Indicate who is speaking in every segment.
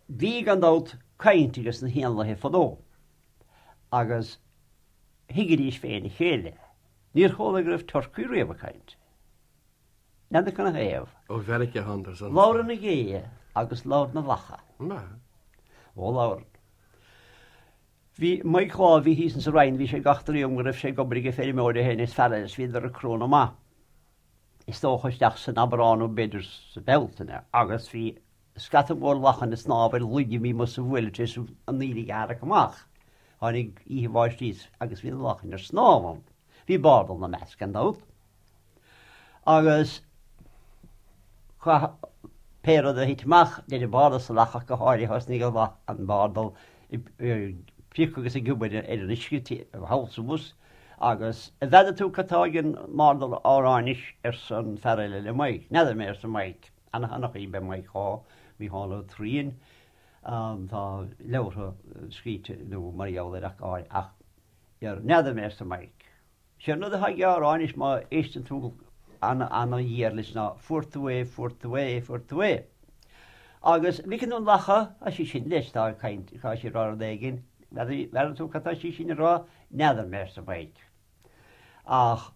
Speaker 1: Bhí, gan dabht, caint ages na héanlaithe fadó agus thuigidís féin a chéile. Níor chuala go raibh turcaí riamh ag caint. N'fheadar cad 'na thaobh.
Speaker 2: Ó Mheiriceá a thánadar san.
Speaker 1: Labhrann na géithe agus labhrann na lacha. Ó labhrann. Bhí Mike lá a bhí thíos insa Rinn, bhí sé ag eachtraí dom go raibh sé ag obair age feirmeoir é féin is fear eile is bhíodar ag crónadh maith. Is dócha isteach san Aibreán nó b'fhéidir sa Bhealtaine agus bhí scata mór lachan ag snámh ar laig a bhí amuigh sa bhuaile tar éis an aoiligh a tharrac amach. Tháinig oíche bháistí agus bhí na lachain ar snámh ann. Bhí bardal ina measc gan dabht. Agus chaith pé rud a thit amach, deir an bardal sa lach ach go háirithe thosnaigh an bardal ag priocadh agus ag obair ar an uisce thall is abhus agus an bhfeadar tú cad tá ag an mbardal á rá anois arsa an fear eile le Mike. N'fheadar mé arsa Mike. Ana-sheanchaí ab ea Mike Shaw, Mícheál Ó Troian. Tá leabhartha scríte nó mar gheall air ach go háirithe ach n'fheadar mé arsa Mike. Sé an rud atá aige á rá anois má éisteann tú ana-ghéar leis ná fuair tú é, fuair tú é, fuair tú é. Agus an bhfeiceann tú an lacha, tá sí sin leis, tá ag caint, tá sí ag rá rud éigin, n'fheadar tú cad tá sí sin ag rá? N'fheadar mé, arsa Mike. Ach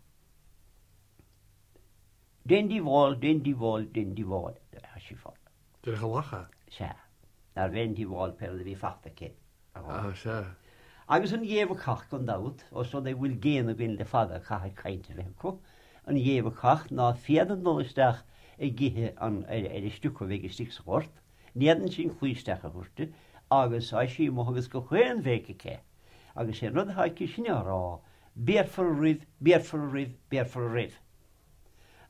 Speaker 1: déan díobháil, déan díobháil, déan díobháil, tá sí fá.
Speaker 2: Déarfadh an lacha.
Speaker 1: Sea. Nárbh aon díobháil pé rud a bhí fachta aici.
Speaker 2: Á, sea.
Speaker 1: Agus an ghé bhacach, gan dabht, ós rud é go bhfuil géanna againn le fada, caithfidh caint a bheith acu. An ghé bhacach ná féadann dul isteach ag ithe an, ar an stiúcadh a bheidh istigh sa ghort, ní fhéadann sí an claí isteach a thabhairt di, agus tá sí amuigh agus gach aon bhéic aici. Agus sé an rud atá aici sin á rá, béarfar oraibh, béarfar oraibh, béarfar oraibh.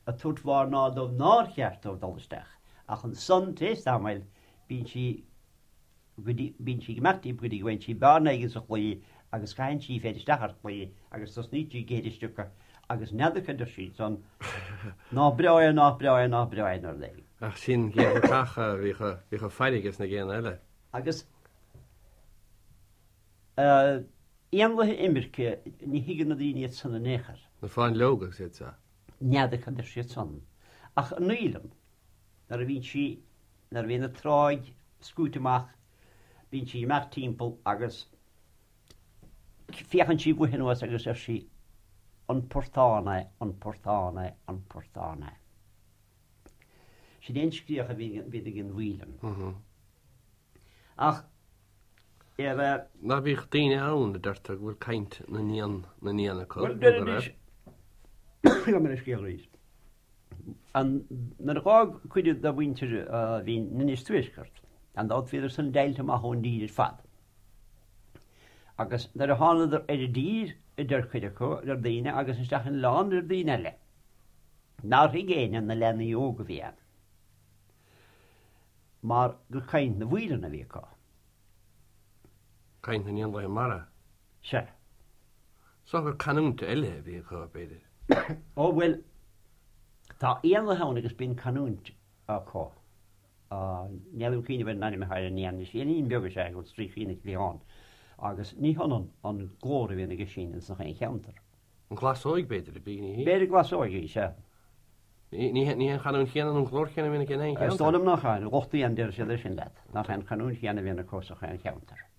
Speaker 1: Ag tabhairt mhairneáil dóibh nár cheart dóibh dul isteach. Ach ansan, tar éis tamaill, bíonn sí go dtí, bíonn sí ag imeacht díobh go dtí go bhfaigheann sí bearna éigin sa chlaí agus caitheann sí í féin isteach ar an chlaí agus tosnaíonn sí ag ithe an stiúcadh agus n'fheadar cad deir sí ansan, Ná breá é, ná breá é, ná breá é nó rud éigin.
Speaker 2: Ach sin gé bhacach a bhíodh, bhíodh faire ages na géanna eile.
Speaker 1: Agus éanlaithe imirce, ní thuigeann na daoine iad san in aon chor.
Speaker 2: Na fáinleoga agus iad seo.
Speaker 1: N'fheadar cad deir siad san. Ach an fhaoileann, nuair a bhíonn sí, nuair a bhíonn an tráigh scúite amach, bíonn sí ag imeacht timpeall agus féachann sí uaithi anuas agus deir sí, An portán é, an portán é, an portán é. Sin é an scréach a bhíonn ag an bhfaoileann. Ach ar a.
Speaker 2: Ná bíodh daoine ann a deirtear go bhfuil caint na n-éan na n-éan acu,
Speaker 1: Bhuel, deir anois, gabh mo leithscéal arís. An, nuair a dh'fhág cuid de mhuintir a bhí in Inis Tuaisceart, gan dabht bhíodar san deighilte amach ón dtír ar fad. Agus nuair a thánadar ar an dtír, a deir cuid acu, deir daoine, agus isteach in oileán, deir daoine eile, nár thuig éinne na leanaí óga a bhí ann. Mar gur caint na bhfaoilean a bhí acu.
Speaker 2: Caint na n-éanlaithe mara.
Speaker 1: Sea.
Speaker 2: Is dócha gur canúint eile a bhí acu, b'fhéidir.
Speaker 1: Ó, bhuel, tá éanlaithe ann agus bíonn canúint acu. Níl aon chuimhne ar an ainm atá ar an éan anois. Éinín beag is ea é, go bhfuil stríocaí ina chliathán. Agus ní hionann an glór a bhíonn aige sin ins nach aon cheantar.
Speaker 2: An ghlasóig, b'fhéidir, a bhí, ní hí?
Speaker 1: B'fhéidir glasóig í, sea.
Speaker 2: Ní hé an chanúint chéanna nó an glór céanna a bhíonn aici in aon
Speaker 1: Is
Speaker 2: cheantar.
Speaker 1: dóigh liom nach ea, lucht éan deir siad é sin leat, nach é an chanúint chéanna a bhíonn acu sa chaon cheantar.